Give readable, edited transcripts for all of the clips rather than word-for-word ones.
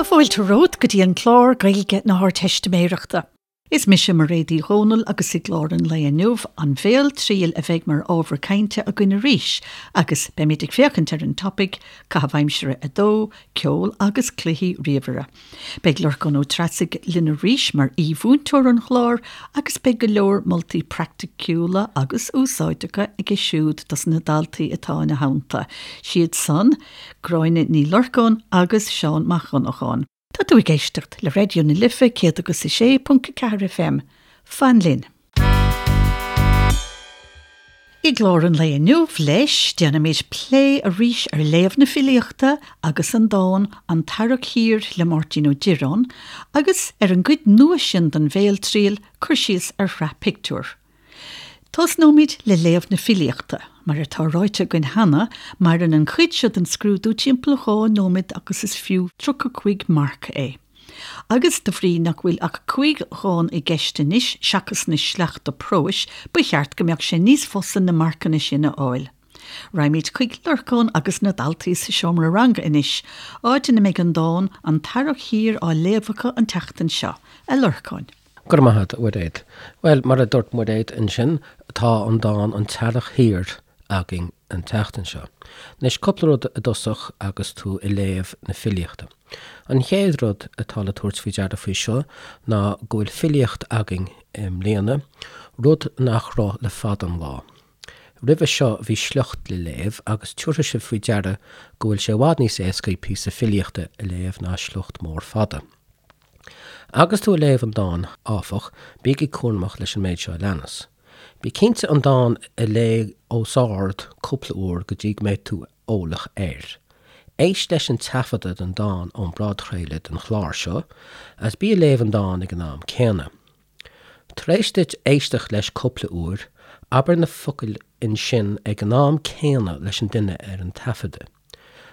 fáilte romhat go dtí an clár Gaeilge na hArdteistiméireachta. Is mise Mairéad Uí Dhomhnaill agus i gclár an lae inniu, an bhéaltriail a bheidh mar ábhar cainte againn arís agus beimid ag féachaint ar an topaic, Caitheamh Aimsire 2, Ceol agus Cluichí Ríomhaire. Beidh Lorcán Ó Treasaigh linn arís mar aoi-mhúinteoir an chláir agus beidh go leor moltaí praiticiúla agus úsáideacha aige siúd dos na daltaí atá ina theannta, siad san, Gráinne Ní Lorcáin agus Seán Mac Dhonnacháin. Tá tú ag éisteacht le Raidió na Life 106.4 FM. Fan linn! I gclár an lae inniu, leis, déanfaimid plé arís ar léamh na filíochta agus an dán 'An tEarrach Thiar' le Máirtín Ó Direáin, agus ar an gcuid nua sin den bhéaltriail, cur síos ar shraith pictiúr. Tosnóimid le léamh na filíochta. Mar atá ráite againn cheana, maireann an chuid seo den scrúdú timpeall 2 nóiméad agus is fiú 35 marc é. Agus de bhrí nach bhfuil ach 5 dhán i gceist anois seachas na sleachta próis, ba cheart go mbeadh sé níos fusa na marcanna sin a fháil. Raghaimid chuig Lorcán agus na daltaí sa seomra ranga anois, áit ina mbeidh an dán 'An tEarrach Thiar' á léamh acu an tseachtain seo. A Lorcáin. Go raibh maith agat, a Mhuiréad. Bhuel, mar a dúirt Muiréad ansin, tá an dán An tEarrach Thiar againn an tseachtain seo. Anois, cúpla rud i dtosach agus tú ag léamh na filíochta. An chéad rud atá le tabhairt faoi deara faoi seo ná go bhfuil filíocht againn i mbliana, rud nach raibh le fada an lá. Roimhe seo bhí sliocht le léamh agus tiúrfaidh sibh faoi deara go bhfuil sé i bhfad níos éascaí píosa filíochta a léamh ná sliocht mór fada. Agus tú ag léamh an dáin, áfach, bígí cúramach leis an méid seo a leanas. Bí cinnte an dán a léamh os ard cúpla uair go dtí go mbeidh tú eolach air. Éist leis an taifeadadh den dán ón bpodchraoladh den chlár seo, agus bí ag léamh an dáin ag an am céanna. Tar éis duit éisteacht leis cúpla uair, abair na focail ansin ag an am céanna leis an duine ar an taifeadadh.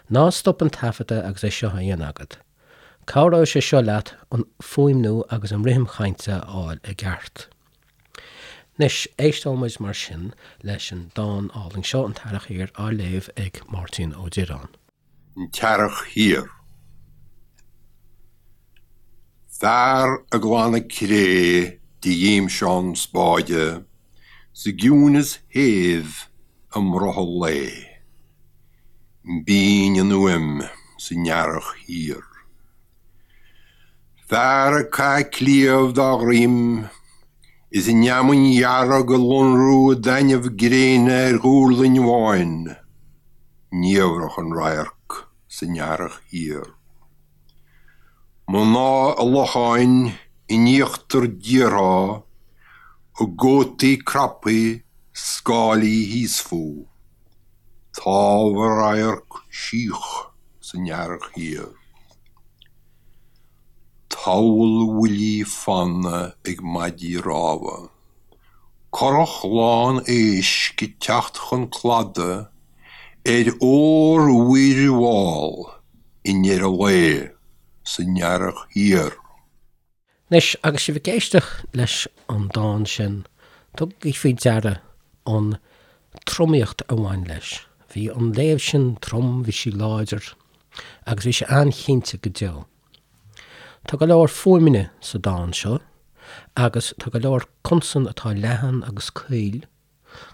Ná stop an taifeadadh agus é seo á dhéanamh agat. Cabhróidh sé seo leat an fuaimniú agus an rithim chainte a fháil i gceart. Anois, éisteoidh muid mar sin leis an dán álainn seo, An tEarrach Thiar, á léamh ag Máirtín Ó Direáin. An tEarrach Thiar. Fear ag glanadh cré de ghimseán spáide sa gciúineas shéimh i mbrothall lae. B'in an fhuaim san earrach thiar. Fear ag caitheamh cliabh dá dhroim is an fheamainn dhearg ag lonrú i dtaitneamh gréine ar dhuirling bháin, niamhrach an radharc san earrach thiar. Mná i locháin in íochtar díortha a gcótaí craptha scáilí thíos fúthu. Támh a radharc síoch san earrach thiar. Tabhall bhuillí fanna ag maidí rámha. Curach lán éisc ag teacht chun cladaigh ar ór-mhuir mhall i ndeireadh lae san earrach thiar. Anois, agus sibh ag éisteacht leis an dán sin, tugaigí faoi deara an tromaíocht a bhain leis. Bhí an léamh sin trom, bhí sí láidir, agus bhí sé an-chinnte go deo. Tá go leor fuaimeanna sa dán seo, agus tá go leor consan atá leathan agus caol,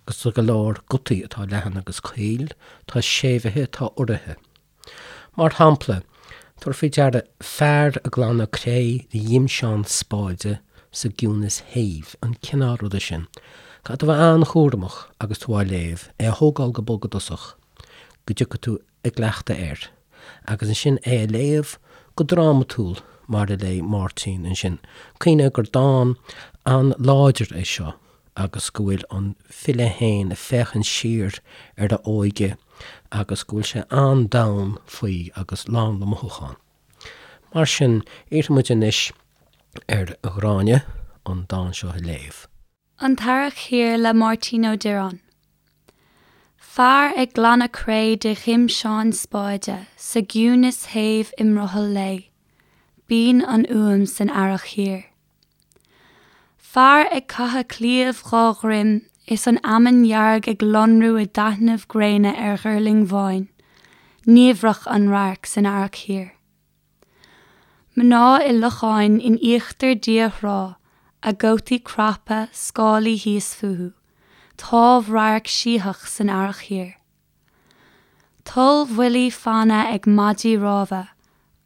agus tá go leor gutaí atá leathan agus caol, tá séimhithe, tá uraithe. Mar shampla, tabhair faoi deara fear ag glanadh cré de ghimseán spáide sa gciúnas shéimh, an cineál ruda sin. Caithfidh tú a bheith an-chúramach agus tú á léamh, é a thógáil go bog i dtosach, go dtiocfaidh tú i gcleachtadh air, agus ansin é a léamh go drámatúil mar a léigh Máirtín ansin. Cuimhnigh gur dán an-láidir é seo. agus go bhfuil an file féin ag féachaint siar ar a óige agus go bhfuil sé an-domhain faoi agus lán le mothúchán. Mar sin, iarrfaidh muid anois ar Ghráinne an dán seo a léamh. An tEarrach Thiar le Máirtín Ó Direáin. Fear ag glanadh cré de ghimseán spáide sa gciúnas shéimh i mbrothall lae. B'in an fhuaim san earrach thiar. Fear ag caitheamh cliabh dhá dhroim is an fheamainn dhearg ag lonrú i dtaitneamh gréine ar ghuirling bháin, niamhrach an radharc san earrach thiar. Mná i locháin in íochtar dia thrá, a gcótaí craptha, scálaí thíos fúthu, támhradharc sítheach san earrach thiar. Tollbhuillí fanna ag maidí rámha,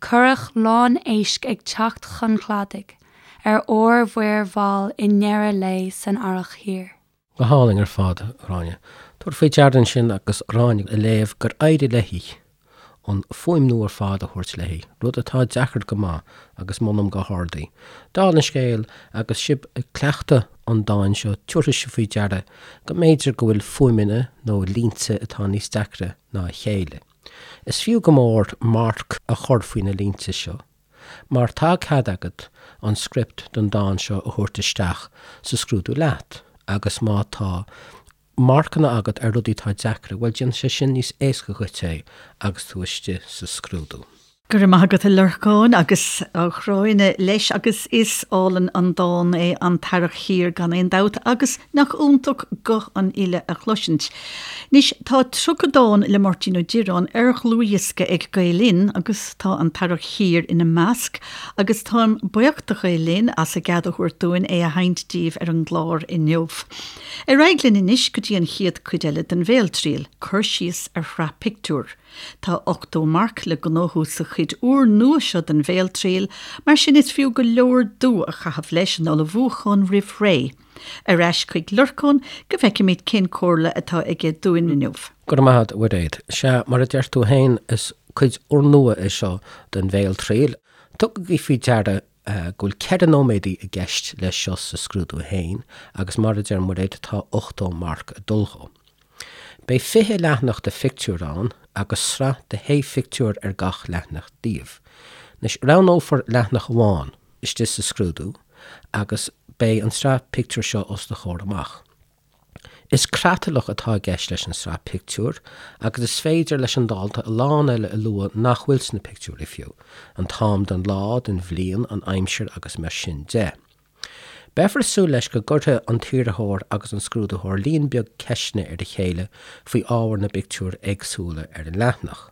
curach lán éisc ag teacht chun cladaigh ar órmhuir mhall i ndeireadh lae san earrach thiar. Go hálainn ar fad, a Ghráinne. Tabhair faoi deara ansin agus Gráinne ag léamh gur éirigh léi an fuaimniú ar fad a thabhairt léi, rud atá deacair go maith agus molaim go hard í. Dála an scéil, agus sibh ag cleachtadh an dáin seo, tabharfaidh sibh faoi deara go mb'fhéidir go bhfuil fuaimeanna nó línte atá níos deacra ná a chéile. Is fiú go mór marc a chur faoi na línte seo. Mar tá cead agat an script don dán seo a thabhairt isteach sa scrúdú leat agus má tá marcanna agat ar rudaí atá deacra, bhuel déanfaidh sé sin níos éasca dhuit é agus tú istigh sa scrúdú. Go raibh maith agat a Lorcáin agus a Ghráinne leis agus is álainn an dán é An tEarrach Thiar gan aon dabht agus nach iontach guth an fhile a chloisint. Anois tá 30 dán le Máirtín Ó Direáin ar dhlúthdhiosca ag Gael Linn agus tá An tEarrach Thiar ina measc agus táim buíoch do Ghael Linn as a gcead a thabhairt dúinn é a sheinnt daoibh ar an gclár inniu. Ar aghaidh linn anois go dtí an chéad cuid eile den Bhéaltriail, cur síos ar shraith pictiúr. Tá 80 marc le gnóthú sa chuid úr nua seo den Bhéaltriail, mar sin is fiú go leor dua a chaitheamh leis an ullmhúchán roimh ré. Ar ais chuig Lorcán go bhfeicfimid cén comhairle atá aige dúinn inniu. Go raibh maith agat, a Mhuiréad. Sea, mar a deir tú féin, is cuid úrnua é seo den Bhéaltriail. Tugaigí faoi deara go bhfuil 4 nóiméadaí i gceist leis seo sa scrúdú féin agus mar a deir Muiréad, tá 80 marc ag dul dhó. Beidh 20 leathanach de phictiúir ann agus sraith de shé phictiúr ar gach leathanach díobh. Anois, roghnófar leathanach amháin istigh sa scrúdú agus beidh an tsraith pictiúr seo os do chomhair amach. Is creatlach atá i gceist leis an sraith pictiúr agus is féidir leis an dalta a lán eile a lua nach bhfuil sna pictiúirí fiú, an t-am den lá, den bhliain, an aimsir agus mar sin de. Beifear ag súil leis go gcuirfidh an t-iarrthóir agus an scrúdaitheoir líon beag ceisteanna ar a chéile faoi ábhar na bpictiúr éagsúla ar an leathanach.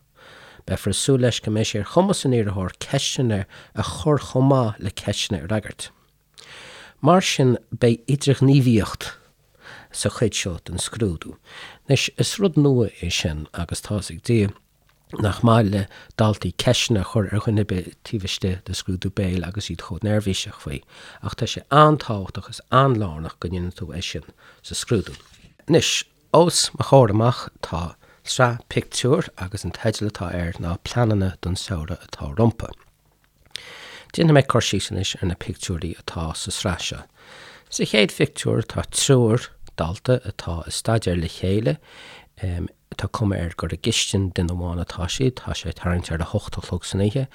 Beifear ag súil leis go mbeidh sé ar chumas an iarrthóir ceisteanna a chur chomh maith le ceisteanna a fhreagairt. Mar sin beidh idirghníomhaíocht sa chuid seo den scrúdú. Anois, is rud nua é sin agus tá's ag Dia nach maith le daltaí ceisteanna a chur ar dhuine ar bith taobh istigh de scrúdú béil agus iad chomh neirbhíseach faoi, ach tá sé an-tábhachtach is an-lárnach go ndéanann tú é sin sa scrúdú. Anois, os mo chomhair amach tá sraith pictiúr agus an teideal atá air ná Pleananna don Samhradh atá Rompu. Déanfaidh mé cur síos anois ar na pictiúirí atá sa sraith seo. Sa chéad phictiúr tá triúr dalta atá ag staidéar le chéile. Tá cuma air gur i gcistin duine amháin atá siad, tá sé tarraingt ar a hocht a chlog san oíche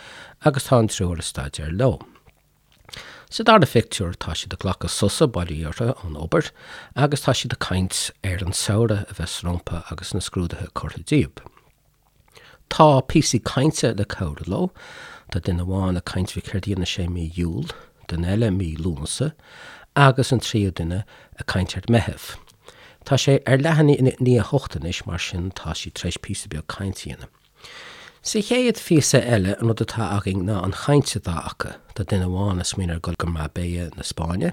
agus tá an triúr ag staidéar leo. Sa dara phictiúr tá siad ag glacadh sosa, bail ó Dhia orthu, ón obair agus tá siad ag caint ar an samhradh a bheas rompu agus na scrúduithe curtha díobh. Tá píosaí cainte le cabhrú leo. Tá duine amháin ag caint faoi céard a dhéanfaidh sé mí Iúil, duine eile mí Lúnasa agus an tríú duine ag caint ar Meitheamh. Tá sé ar leath i ndiaidh a hocht anois, mar sin tá siad tar éis píosa beag cainte a dhéanamh. Sa chéad phíosa eile, an rud atá againn ná an chaint atá acu. Tá duine amháin ag smaoineamh ar dhul go Marbella na Spáinne,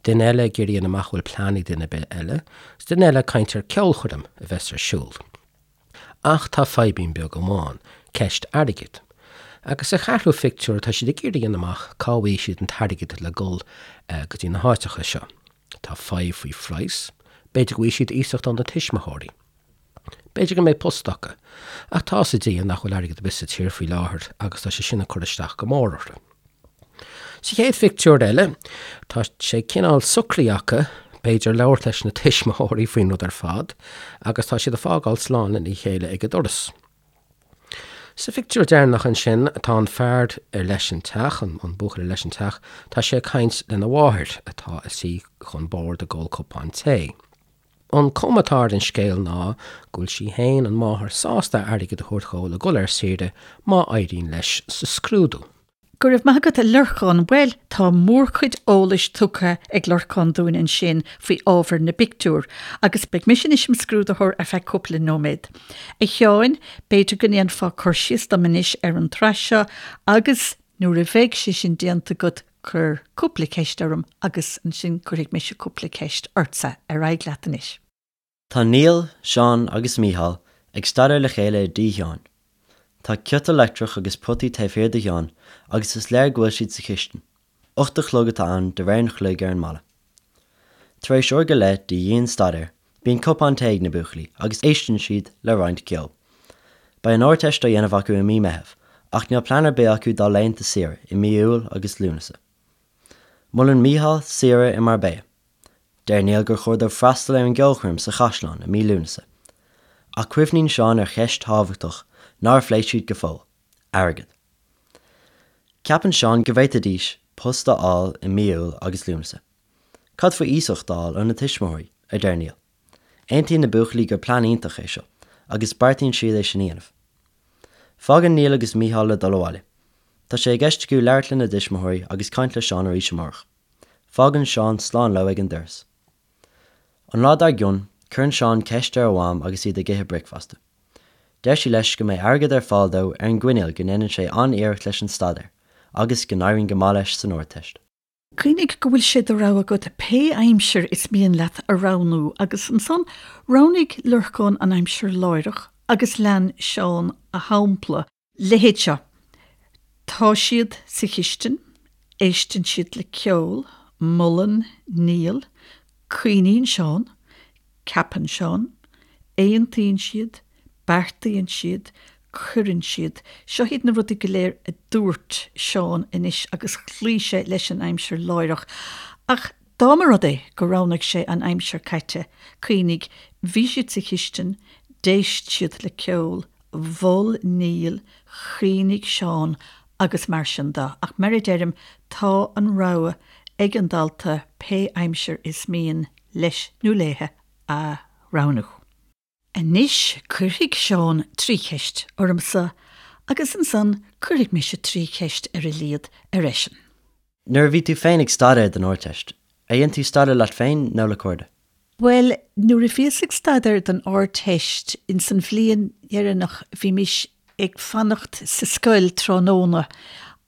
duine eile ag iarraidh a dhéanamh amach an bhfuil plean ag duine ar bith eile, agus duine eile ag caint ar ceolchoirm a bheas ar siúl. Ach tá fadhbín beag amháin, ceist airgid. Agus sa cheathrú phictiúr tá siad ag iarraidh a dhéanamh amach cá bhfaighidh siad an t-airgead le dul go dtí na háiteacha seo. Tá fadhb faoi phraghas, b'fhéidir go bhfaighidh siad iasacht óna tuismitheoirí. B'fhéidir go mbeidh post acu. Ach tá 'fhios ag Dia nach bhfuil airgead ar bith sa tír faoi láthair agus tá sé sin ag cur isteach go mór orthu. Sa chéad phictiúr eile, tá sé cineál socraithe acu, b'fhéidir, labhairt leis na tuismitheoirí faoin rud ar fad agus tá siad ag fágáil slán lena chéile ag an doras. Sa phictiúr deireanach ansin, tá an fear ar leis an teach, an buachaill ar leis an teach, tá sé ag caint lena mháthair atá ina suí chun boird ag ól cupán tae. An cuma atá ar an scéal ná go bhfuil sí féin, an mháthair, sásta airgead a thabhairt dhó le dhul ar saoire má éiríonn leis sa scrúdú. Go raibh maith agat a Lorcáin. Bhuel, tá mórchuid eolais tugtha ag Lorcán dúinn ansin faoi ábhar na bpictiúr, agus beidh mise anois im scrúdaitheoir ar feadh cúpla nóiméad. A Sheáin, b'fhéidir go ndéanfá cur síos dom anois ar an tsraith seo agus. Nuair a bheidh sé sin déanta agat, cuir cúpla ceist orm agus ansin cuirfidh mise cúpla ceist ortsa. Ar aghaidh leat anois. Tá Niall, Seán agus Mícheál ag staidéar le chéile i dtí Sheáin. Tá ciotal leictreach agus potaí taobh thiar de Sheán agus is léir go bhfuil siad sa chistin. 8 a chlog atá ann de réir an chloig ar an mballa. Tar éis uair go leith de dhian-staidéar, bíonn cupán tae ag na buachaillí agus éisteann siad le roinnt ceoil. Beidh an Ardteist á dhéanamh acu i mí Meitheamh ach níl plean ar bith acu dá laethanta saoire i mí Iúil agus Lúnasa. Molann Mícheál saoire i Marbella. Deir Niall gur chóir dóibh freastal ar an gceolchoirm sa chaisleán i mí Lúnasa. Ach cuimhníonn Seán ar cheist thábhachtach nár phléigh siad go fóill, airgead. Ceapann Seán go bhféadfaidís post a fháil i mí Iúil agus Lúnasa. Cad faoi iasacht a fháil óna tuismitheoirí? a deir Niall. Aontaíonn na buachaillí gur plean iontach é seo agus beartaíonn siad é sin a dhéanamh. Fágann Niall agus Mícheál le dul abhaile. Tá sé i gceist acu labhairt lena dtuismitheoirí agus caint le Seán arís amárach. Fágann Seán slán leo ag an doras. An lá dár gcionn, cuireann Seán ceist ar a mham agus iad ag ithe bricfeasta. Deir sí leis go mbeidh airgead ar fáil dó ar an gcoinníoll go ndéanann sé an-iarracht leis an staidéar agus go n-éiríonn go maith leis san Ardteist. Cuimhnigh go bhfuil sé de rogha agat pé aimsir is mian leat a roghnú agus ansan roghnaigh Lorcán an aimsir láithreach agus lean Seán a shampla. Leithéid seo. Tá siad sa chistin, éisteann siad le ceol, molann Niall, cuimhníonn Seán, ceapann Seán, aontaíonn siad, beartaíonn siad, cuireann siad. Seo iad na rudaí go léir a dúirt Seán anois agus chloígh sé leis an aimsir láithreach. Ach dá mba rud é gur roghnaigh sé an aimsir caite, cuimhnigh, bhí siad sa chistin, d'éist siad le ceol, mhol Niall, chuimhnigh Seán agus mar sin de. Ach mar a deirim, tá an rogha ag an dalta pé aimsir is mian leis nó léithe a roghnú. Anois cuirfidh Seán tri cheist ormsa agus ansan cuirfidh mise tri cheist ar a laghad ar eisean. Nuair a bhí tú féin ag staidéar don Ardteist, ar dhein tú staidéar leat féin nó le cairde? Bhuel, nuair a bhíos ag staidéar don Ardteist, ins an bhliain dheireanach, bhímis ag fanacht sa scoil tráthnóna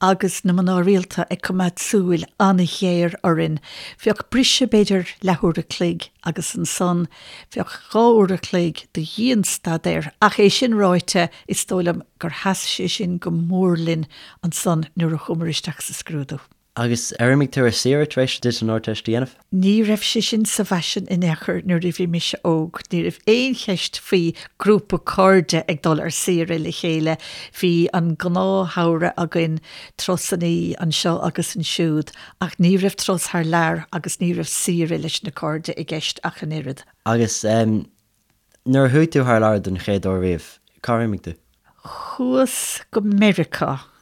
agus na mná rialta ag coimeád súil an-ghéar orainn. Bheadh briseadh b'fhéidir leathuair a chloig agus ansan bheadh dha uair a chloig de dhian-staidéar ach é sin ráite is dóigh liom gur sheas sé sin go mór linn ansan nuair a chuamar isteach sa scrúdú. Agus ar imigh tú ar saoire tar éis duit an Ardteist a dhéanamh? Ní raibh sé sin sa bhfaisean in aon chor nuair a bhí mise óg. Ní raibh aon cheist faoi grúpa cairde ag dul ar saoire le chéile. Bhí an gnáthshamhradh againn, turasannaí anseo agus ansiúd, ach ní raibh turas thar lear agus ní raibh saoire leis na cairde i gceist ach an oiread. Agus nuair a chuaigh tú thar lear don chéad uair riamh, cár imigh tú? Chuas go Meiriceá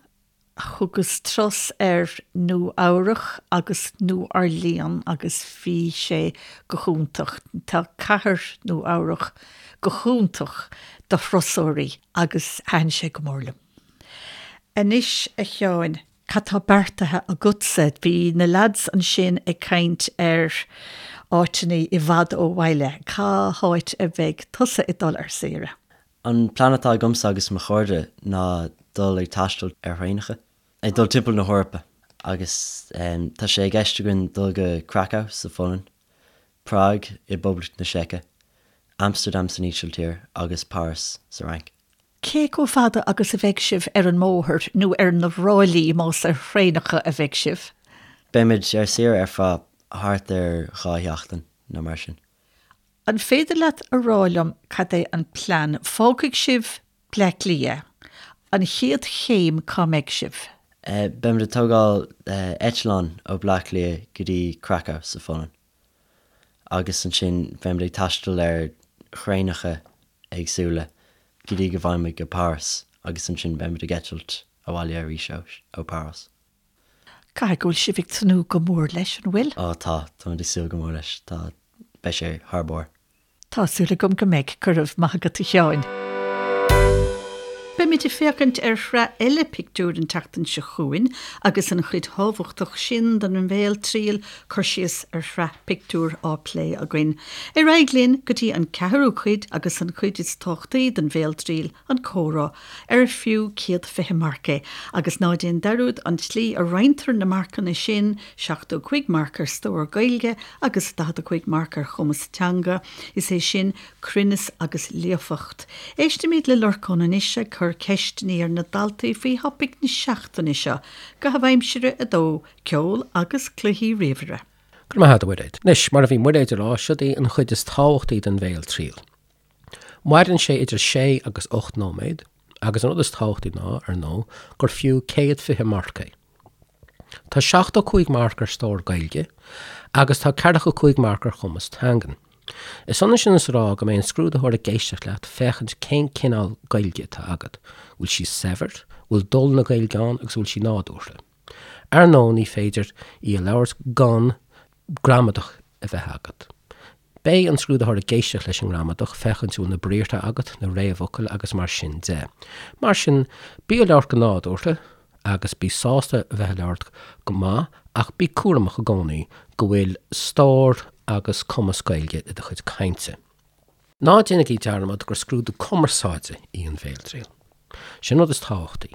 Thugas turas ar Nua Eabhrach agus New Orleans agus bhí sé go hiontach. Tá cathair Nua Eabhrach go hiontach do thurasóirí agus thaitin sé go mór liom. Anois a Sheáin, cad tá beartaithe agatsa? Bhí na lads ansin ag caint ar áiteanna i bhfad ó bhaile. Cá háit a bheidh tusa ag dul ar saoire? An plean atá agamsa agus mo chairde ná dul ag taisteal ar thraenacha, ag dul timpeall na hEorpa agus tá sé i gceist againn dul go Krakow sa Pholainn, Prág i bPoblacht na Seice, Amsterdam san Ísiltír agus Páras sa Fhrainc. Cé chomh fada agus a bheidh sibh ar an mbóthar, nó ar na ráillí más ar thraenacha a bheidh sibh? Beimid ar saoire ar feadh thart ar dha sheachtain nó mar sin. An féidir leat a rá liom cad é an plean? Fágfaidh sibh Bleá Cliath. An chéad chéim cá mbeidh sibh? Beimid ag tógáil eitleán ó Bleá Cliath go dtí Krakow sa Pholainn agus ansin beimid ag taisteal ar thraenacha éagsúla go dtí go bhfaighimid go Páras agus ansin beimid ag eitilt abhaile arís ó Páras. Caithfidh go bhfuil sibh ag tnúth go mór leis, an bhfuil? Ó tá, táimid ag súil go mór leis. Tá, beidh sé thar barr. Tá súil agam go mbeidh. Go raibh maith agat a Sheáin. Beimid ag féachaint ar shraith eile pictiúr an tseachtain seo chugainn agus an chuid thábhachtach sin den bhéaltriail, cur síos ar shraith pictiúr, á plé againn. Ar aghaidh linn go dtí an ceathrú cuid agus an chuid is tábhachtaí den bhéaltriail, an comhrá, ar fiú 120 marc é. Agus ná déan dearúd an tslí a roinntear na marcanna sin, 75 marc ar stór Gaeilge agus 45 marc ar chumas teanga, is é sin, cruinneas agus líofacht. Éistimid le Lorcán anois ag cur ceisteanna ar na daltaí faoi thopaic na seachtaine seo, Caitheamh Aimsire 2, Ceol agus Cluichí Ríomhaire. Go raibh maith agat, a Mhuiréad. Anois, mar a bhí Muiréad ag rá, siod í an chuid is tábhachtaí den bhéaltriail. Maireann sé idir sé agus 8 nóiméad, agus an rud is tábhachtaí ná, ar ndóigh, gur fiú 120 marc é. Tá 75 marc ar stór Gaeilge agus tá 45 marc ar chumas teangan. Is ionann sin is a rá go mbeidh an scrúdaitheoir ag éisteacht leat féachaint cén cineál Gaeilge atá agat, bhfuil sí saibhir, bhfuil dul na Gaeilge ann agus bhfuil sí nádúrtha. Ar ndóigh ní féidir í a labhairt gan gramadach a bheith agat. Beidh an scrúdaitheoir ag éisteacht leis an ngramadach, féachaint an bhfuil na briathra agat, na réamhfhocail agus mar sin de. Mar sin, bí ag labhairt go nádúrtha agus bí sásta a bheith ag labhairt go maith ach bí cúramach i gcónaí go bhfuil stór agus cumas Gaeilge i do chuid cainte. Ná déanaigí dearmad gur scrúdú cumarsáide í an bhéaltriail. Sin an rud is tábhachtaí.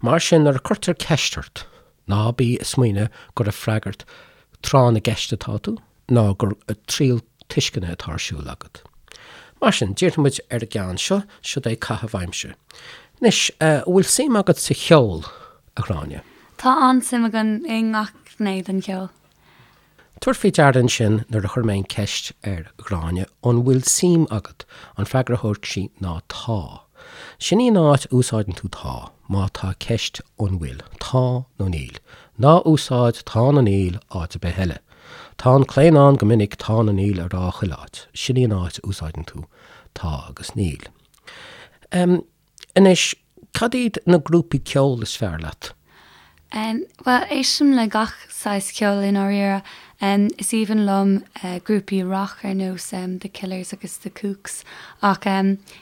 Mar sin, nuair a cuirtear ceist ort, ná bí ag smaoineamh gur ag freagairt tráth na gceist atá tú, ná gur triail tuisceana atá ar siúl agat. Mar sin, díreoidh muid ar an gceann seo, siod é caitheamh aimsire. Anois, an bhfuil suim agat sa cheol, a Ghráinne? Tá an-suim agam i ngach gné den cheol. Tabhair faoi deara ansin nuair a chuir mé an ceist ar Ghráinne an bhfuil suim agat, an freagra a thug sí ná tá. Sin í an áit a úsáideann tú tá, má tá ceist an bhfuil, tá nó níl. Ná úsáid tá nó níl áit ar bith eile. Tá an claonadh ann go minic tá nó níl a rá chuile áit. Sin í an áit a úsáideann tú tá agus níl. Anois, cad iad na grúpaí ceoil is fearr leat? Bhuel, éistim le gach saghas ceoil i ndáiríre. Is aoibhinn liom grúpaí rac ar nós The Killers agus The Kooks ach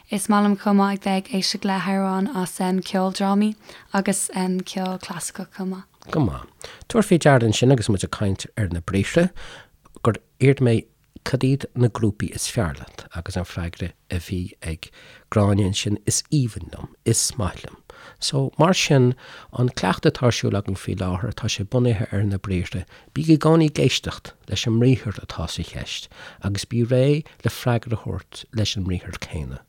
is maith liom chomh maith ag bheith ag éisteacht le hamhráin as ceoldrámaí agus ceol clasaiceach chomh maith. Go maith. Tabhair faoi deara ansin agus muid ag caint ar na briathra gur iarr mé Cad iad na grúpaí is fearr leat? Agus an freagra a bhí ag Gráinne ansin, Is aoibhinn liom, is maith liom. So, mar sin, an cleachtadh atá ar siúl againn faoi láthair, tá sé bunaithe ar na briathra. Bí i gcónaí ag éisteacht leis an mbriathar atá sa cheist agus bí réidh le freagra a thabhairt leis an mbriathar céanna.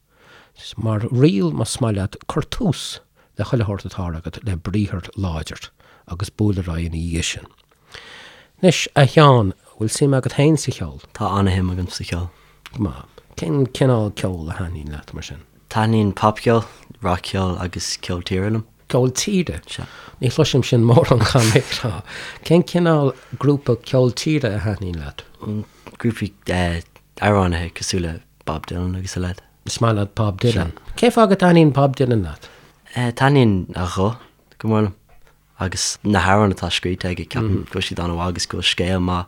Mar riail, más maith leat, cuir tús le chuile shórt atá agat le briathar láidir agus buail ar aghaidh ina dhiaidh sin. Anois, a Sheáin, bhfuil suim agat féin sa cheol? Tá an-shuim agam sa cheol. Go maith. Cén cineál ceoil a thaitníonn leat, mar sin? Taitníonn popcheol, rac-cheol agus ceol tíre liom. Ceol tíre? Sea. Ní chloisim sin mórán, caithfidh mé a rá. Cén cineál grúpa ceol tíre a thaitníonn leat? Grúpaí amhránaithe cosúil le Bob Dylan agus a leithéid. Is maith leat Bob Dylan. Cén fáth go dtaitníonn Bob Dylan leat? Taitníonn a ghuth go mór liom agus na hamhráin atá scríte aige, ceapaim go bhfuil siad an-mhaith agus go bhfuil scéal maith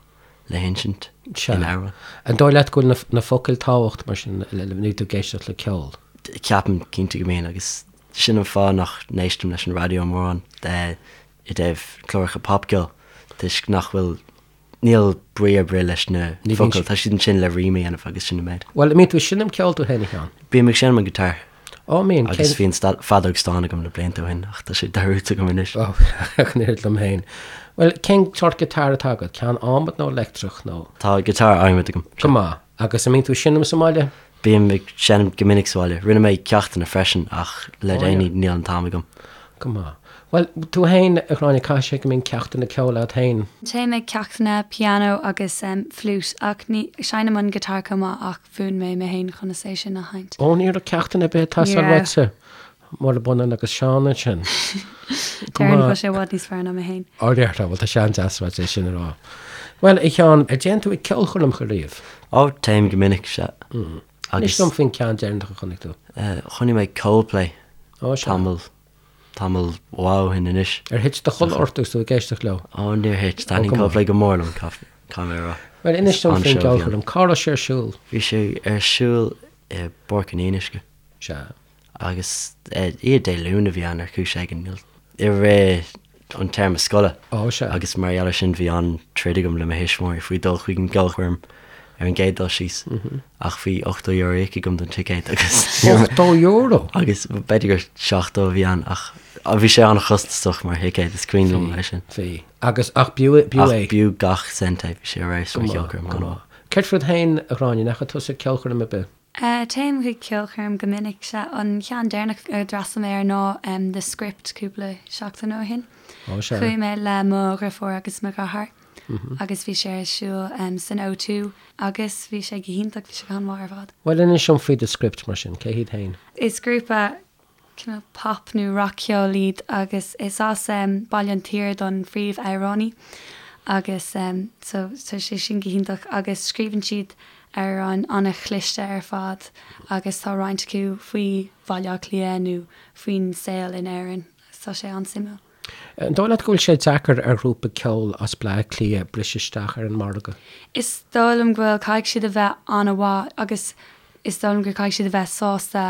le hinsint in amhrán. An dóigh leat go bhfuil na focail tábhachtach mar sin nuair tú ag éisteacht le ceol? Ceapaim cinnte go mbíonn agus sin an fáth nach n-éistim leis an raidió mórán i dtaobh cláracha popcheoil toisc nach bhfuil Níl brí ar bith leis na focail, tá siad ansin le rím a dhéanamh agus sin an méid. Bhuel, an mbíonn tú ag seinm ceoil tú féin, a Sheáin? Bím ag seinm an guitar. Ó, mbíonn. Agus bhí an feadóg stáin agam na blianta ó shin ach tá sé dearúdta agam anois. Ó, ach an oiread liom féin. Bhuel, cén sórt guitar atá agat? Ceann adhmaid nó leictreach nó? Tá guitar adhmaid agam. Go maith. Agus an mbíonn tú ag seinm sa mbaile? Bím ag seinm go minic sa bhaile. Rinne mé ceachtanna freisin ach le déanaí níl an t-am agam. Go maith. Bhuel, tú féin, a Ghráinne, caithfidh sé go mbíonn ceachtanna ceoil agat féin? Téim ag ceachtanna pianó agus fliúit ach ní, seinnim an guitar chomh maith ach mhúin mé mé féin conas é sin a sheinnt. Ó, ní raibh ceachtanna ar bith ag teastáil uaitse. Murab ionann agus Seán ansin. Déarfainn go bhfuil sé i bhfad níos fearr ná mé féin. Ó, déarfá, bhuel tá sé an-deas uait é sin a rá. Bhuel, a Sheáin, ar dtéann tú ag ceolchoirmeacha riamh? Ó, téim go minic, sea. Inis dom faoin ceann deireanach a chonaic tú. Chonaic mé Coldplay tamall, tamall mhaith ó shin anois. Ar thit do chodladh ort agus tú ag éisteacht leo? Ó, níor thit. Taitníonn Coldplay go mór liom, caithfidh mé a rá. Bhuel, inis dom faoin gceolchoirm. Cá raibh sé ar siúl? Bhí sé ar siúl i bPáirc an Fhionnuisce. Sea. Agus oíche Dé Luain a bhí ann ar chúis éigin, i rith an téarma scoile. Ó, sea. Agus mar gheall air sin bhí an-troid agam le mo thuismitheoirí faoi dul chuig an gceolchoirm ar an gcéad dul síos. Ach bhí €80 íoctha agam don ticéad agus. €80? Agus b'fhéidir gur 70 a bhí ann ach bhí sé an-chostasach mar thicéad, is cuimhin liom é sin. Bhí. Agus, ach b'fhiú, b'fhiú é. Ach b'fhiú gach cent é, bhí sé ar fheabhas mar cheolchoirm, an-mhaith. Céard fút féin, a Ghráinne, an ndeachaigh tusa ceolchoirm ar bith? Téim chuig ceolchoirm go minic. Sea, an ceann deireanach a d'fhreastail mé air ná The Script cúpla seachtain ó shin. Ó sea. Chuaigh mé le mo dheirfiúr agus mo dheartháir agus bhí sé ar siúl san O2 agus bhí sé go hiontach, bhí sé go han-mhaith ar fad. Bhuel, inis dom faoi The Script mar sin, cé hiad féin? Is grúpa cineál pop nó rac-cheol iad agus is as Baile an tSaoir don phríomh-amhránaí agus so tá sé sin go hiontach agus scríobhann siad amhráin an-chliste ar fad agus tá roinnt acu faoi Bhaile Átha Cliath nó faoin saol in Éirinn agus tá sé an-suimiúil. An dóigh leat go bhfuil sé deacair ar ghrúpa ceoil as Bleá Cliath briseadh isteach ar an margadh? Is dóigh liom go bhfuil, caithfidh siad a bheith an-mhaith agus is dóigh liom gur caithfidh siad a bheith sásta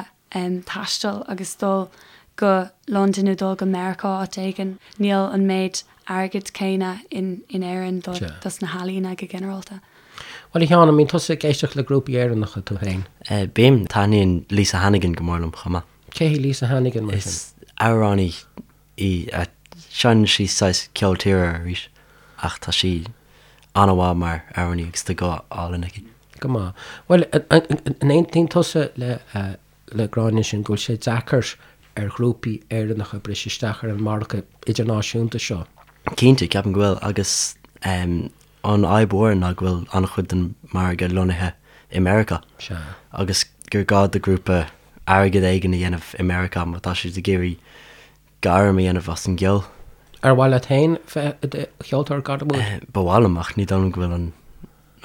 taisteal agus dul go Londain nó dul go Meiriceá áit éigin. Níl an méid airgid céanna in Éirinn do dos na healaíona go ginearálta. Bhuel, a Sheáin, an mbíonn tusa ag éisteacht le grúpaí Éireannacha tú féin? Bím. Taitníonn Lisa Hannigan go mór liom chomh maith. Cé hí Lisa Hannigan mar sin? Is amhránaí í. Seinneann sí saghas ceol tíre arís ach tá sí an-mhaith mar amhránaí agus tá guth álainn aici. Go maith. Bhuel, an aontaíonn tusa le le Gráinne ansin go bhfuil sé deacair ar ghrúpaí Éireannacha briseadh isteach ar an margadh idirnáisiúnta seo? Cinnte, ceapaim go bhfuil agus an fhadhb mhór ná go bhfuil an-chuid den mhargadh lonnaithe i Meiriceá. Sea. Agus gur gá do ghrúpa airgead éigin a dhéanamh i Meiriceá má tá siad ag iarraidh gairm a dhéanamh as an gceol. Ar mhaith leat féin bheith i do cheoltóir gairmiúil? Ba mhaith liom ach ní dóigh liom go bhfuil an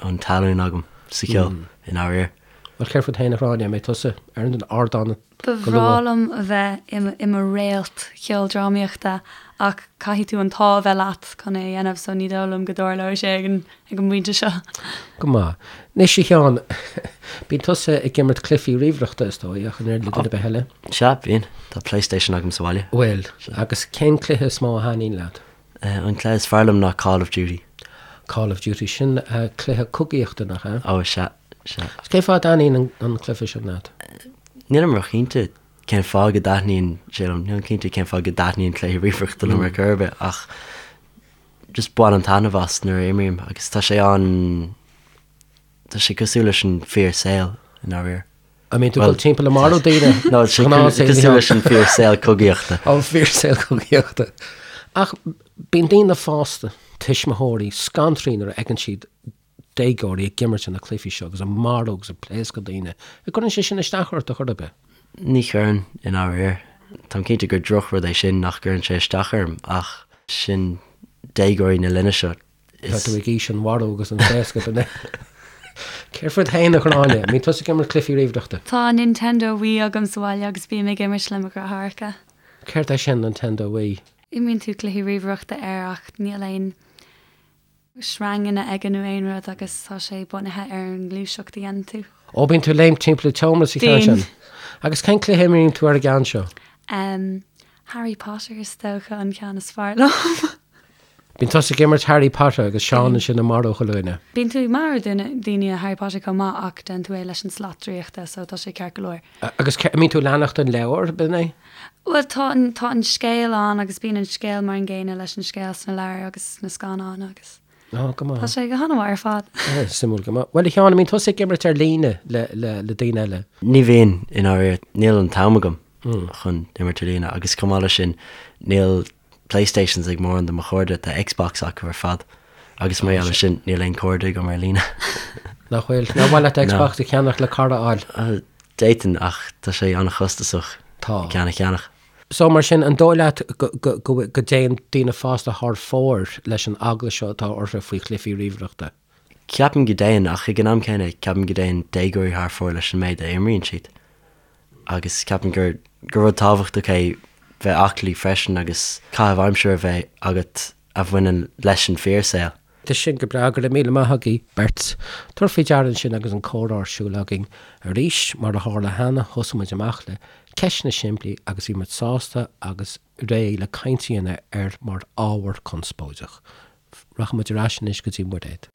an talún agam sa cheol i ndáiríre. Bhuel, céard fút féin, a Ghráinne, an mbeidh tusa ar an ardán Ba go bhreá luath? liom a bheith i mo réalt cheoldrámaíochta ach caithfidh tú an t-ádh a bheith leat chun é a dhéanamh so ní dóigh liom go dtarlóidh sé ag an ag an bpointe seo. Go maith. Anois, a Sheáin, bíonn tusa ag imirt cluichí ríomhaireachta, is dóigh, ach an oiread le duine ar bith eile? Sea, bíonn. Tá PlayStation agam sa bhaile. Bhfuil. Agus cén cluiche is mó a thaitníonn leat? An cluiche is fearr liom ná Call of Duty. Call of Duty, sin cluiche cogaíochta, nach ea? Ó, sea, sea. Agus cén fáth a dtaitníonn an cluiche sin leat? Nílim róchinnte cén fáth go dtaitníonn sé liom. Nílim cinnte cén fáth go dtaitníonn cluichí ríomhaireachta liom ar chor ar bith ach just bainim taitneamh as nuair a imrím agus tá sé an, tá sé cosúil leis an fíor saol i ndáiríre. An mbíonn tú ag dul timpeall ag marú daoine? No, tá sé cosúil leis an fíor saol cogaíochta. An fíor saol cogaíochta. Ach bíonn daoine fásta, tuismitheoirí, scanraithe nuair a fheiceann siad déagóirí ag imirt na cluichí seo agus ag marú agus ag pléascadh daoine. An gcuireann sé sin isteach ort ar chor ar bith? Ní chuireann, i ndáiríre. Táim cinnte gur drochrud é sin nach gcuireann sé isteach orm ach sin déagóirí na linne seo. Tá tú ag aois an mharú agus an phléascadh, an ea? Céard fút féin, a Ghráinne? An mbíonn tusa ag imirt cluichí ríomhaireachta? Tá Nintendo Wii agam sa bhaile agus bím ag imirt le mo dheartháireacha. Céard é sin, Nintendo Wii? Imríonn tú cluichí ríomhaireachta air ach níl aon sreanganna aige nó aon rud agus tá sé bunaithe ar an ngluaiseacht a dhéanann tú. Ó, bíonn tú ag léimt timpeall an tseomra sa cheann sin. Bíonn. Agus cén cluiche a imríonn tú ar an gceann seo? Em, Harry Potter is dócha an ceann is fearr liom. Bíonn tusa ag imirt Harry Potter agus Seán ansin ag marú chuile dhuine. Bíonn tú ag marú daoine i Harry Potter chomh maith ach déanann tú é leis an slat draíochta so tá sé ceart go leor. Agus an mbíonn tú ag leanacht an leabhar, b'in é? Bhuel tá an tá an scéal ann agus bíonn an scéal mar an gcéanna leis an scéal sna leabhair agus sna scannáin agus Ó, go maith. tá sé go han-mhaith ar fad. Suimiúil go maith. Bhuel a Sheáin, an mbíonn tusa ag imirt ar líne le le le daoine eile? Ní bhíonn, i ndáiríre. Níl an t-am agam chun imirt ar líne agus chomh maith leis sin níl Playstations ag mórán de mo chairde, tá Xbox acu ar fad agus mar gheall ar sin níl aon chairde agam ar líne. Nach bhfuil? Nár mhaith leat Xbox a cheannach le cara a fháil? D'fhéadfainn ach tá sé an-chostasach Tá. ceann a cheannach. So mar sin, an dóigh leat go dtéann daoine fásta thar fóir leis an eagla seo atá orthu faoi chluichí ríomhaireachta? Ceapaim go dtéann ach ag an am céanna ceapaim go dtéann déagóirí thar fóir leis an méid a imríonn siad. agus ceapaim gur gur rud tábhachtach é bheith aclaí freisin agus caitheamh aimsire a bheith agat a bhaineann leis an fíorshaol. Tá sin go breá, go raibh míle maith agaibh beirt. Tabhair faoi deara ansin agus an comhrá ar siúl againn arís, mar a tharla cheana, thosaigh muid amach le. Ceisteanna simplí agus bhí muid sásta agus réidh le caint a dhéanamh air mar ábhar conspóideach. Rachaidh muid ar ais anois go dtí Muiréad.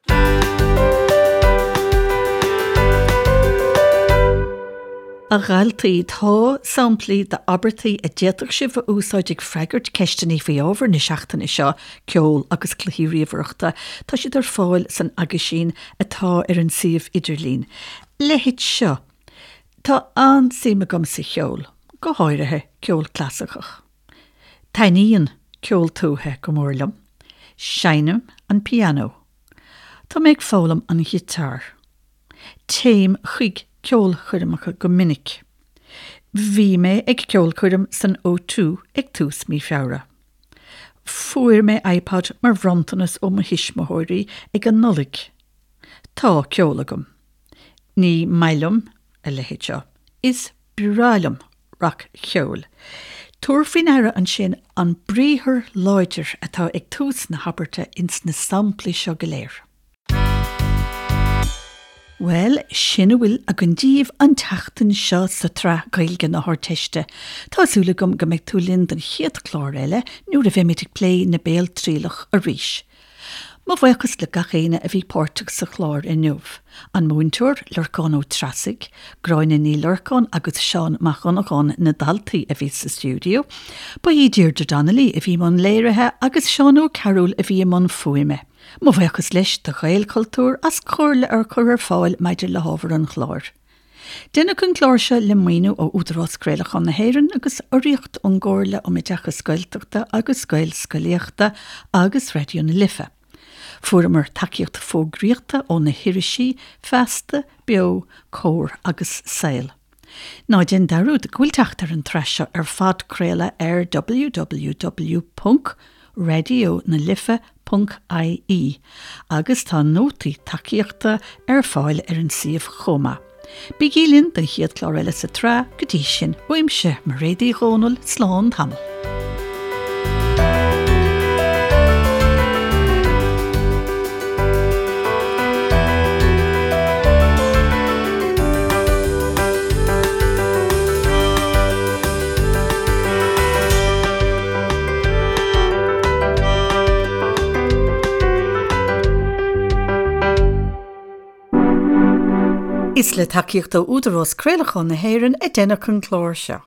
A dhaltaí, tá samplaí d'abairtí a d'fhéadfadh sibh a úsáid ag freagairt ceisteanna faoi ábhar na seachtaine seo, ceol agus cluichí ríomhaireachta. Tá siad ar fáil san aguisín atá ar an suíomh idirlín. Leithéid seo. Tá an-suim agam sa cheol, go háirithe ceol clasaiceach. Taitníonn ceol tuaithe go mór liom. Seinnim an pianó. Tá mé ag foghlaim an ghiotár. Téim chuig ceolchoirmeacha go minic. Bhí mé ag ceolchoirm san O2 ag tús mí Feabhra. Fuair mé iPod mar bhronntanas ó mo thuismitheoirí ag an Nollaig. Tá ceol agam. Ní maith liom a leithéid seo. Is breá liom rac-cheol. Tabhair faoi ndeara ansin an briathar láidir atá ag tús na habairte ins na samplaí seo go léir. Bhuel, sin a bhfuil againn daoibh an tseachtain seo sa tsraith Gaeilge na hArdteiste. Tá súil agam go mbeidh tú linn don chéad chlár eile nuair a bheimid ag plé na Béaltrialach arís. Mo bhuíochas le gach éinne a bhí páirteach sa chlár inniu, an múinteoir, Lorcán Ó Treasaigh, Gráinne Ní Lorcáin agus Seán Mac Dhonnagáin na daltaí a bhí sa stiúideo. Ba í Deirdre Donnelly a bhí i mbun léirithe agus Seán Ó Cearúil a bhí i mbun fuaime. Mo bhuíochas leis do Ghaelchultúr as comhairle a chur ar fáil maidir le hábhar an chláir. Deineadh an clár seo le maoiniú ó Údarás Craolacháin na hÉireann agus urraíocht ón gComhairle um Oideachas Gaeltachta agus Gaelscolaíochta agus Raidió na Life. Fuaireamar tacaíocht fógraíochta ó na hirisí Feasta, Beo, Comhar agus Saol. Ná déan dearúd go bhfuil teacht ar an tsraith seo ar phodchraoladh ar www. raidionalife ponc ie agus tá nótaí tacaíochta ar fáil ar an suíomh chomh maith. Bígí linn don chéad chlár eile sa tsraith, go dtí sin, uaimse, Mairéad Uí Dhomhnaill, slán tamall. Is le tacaíocht ó Údarás Craolacháin na hÉireann a deineadh an clár seo.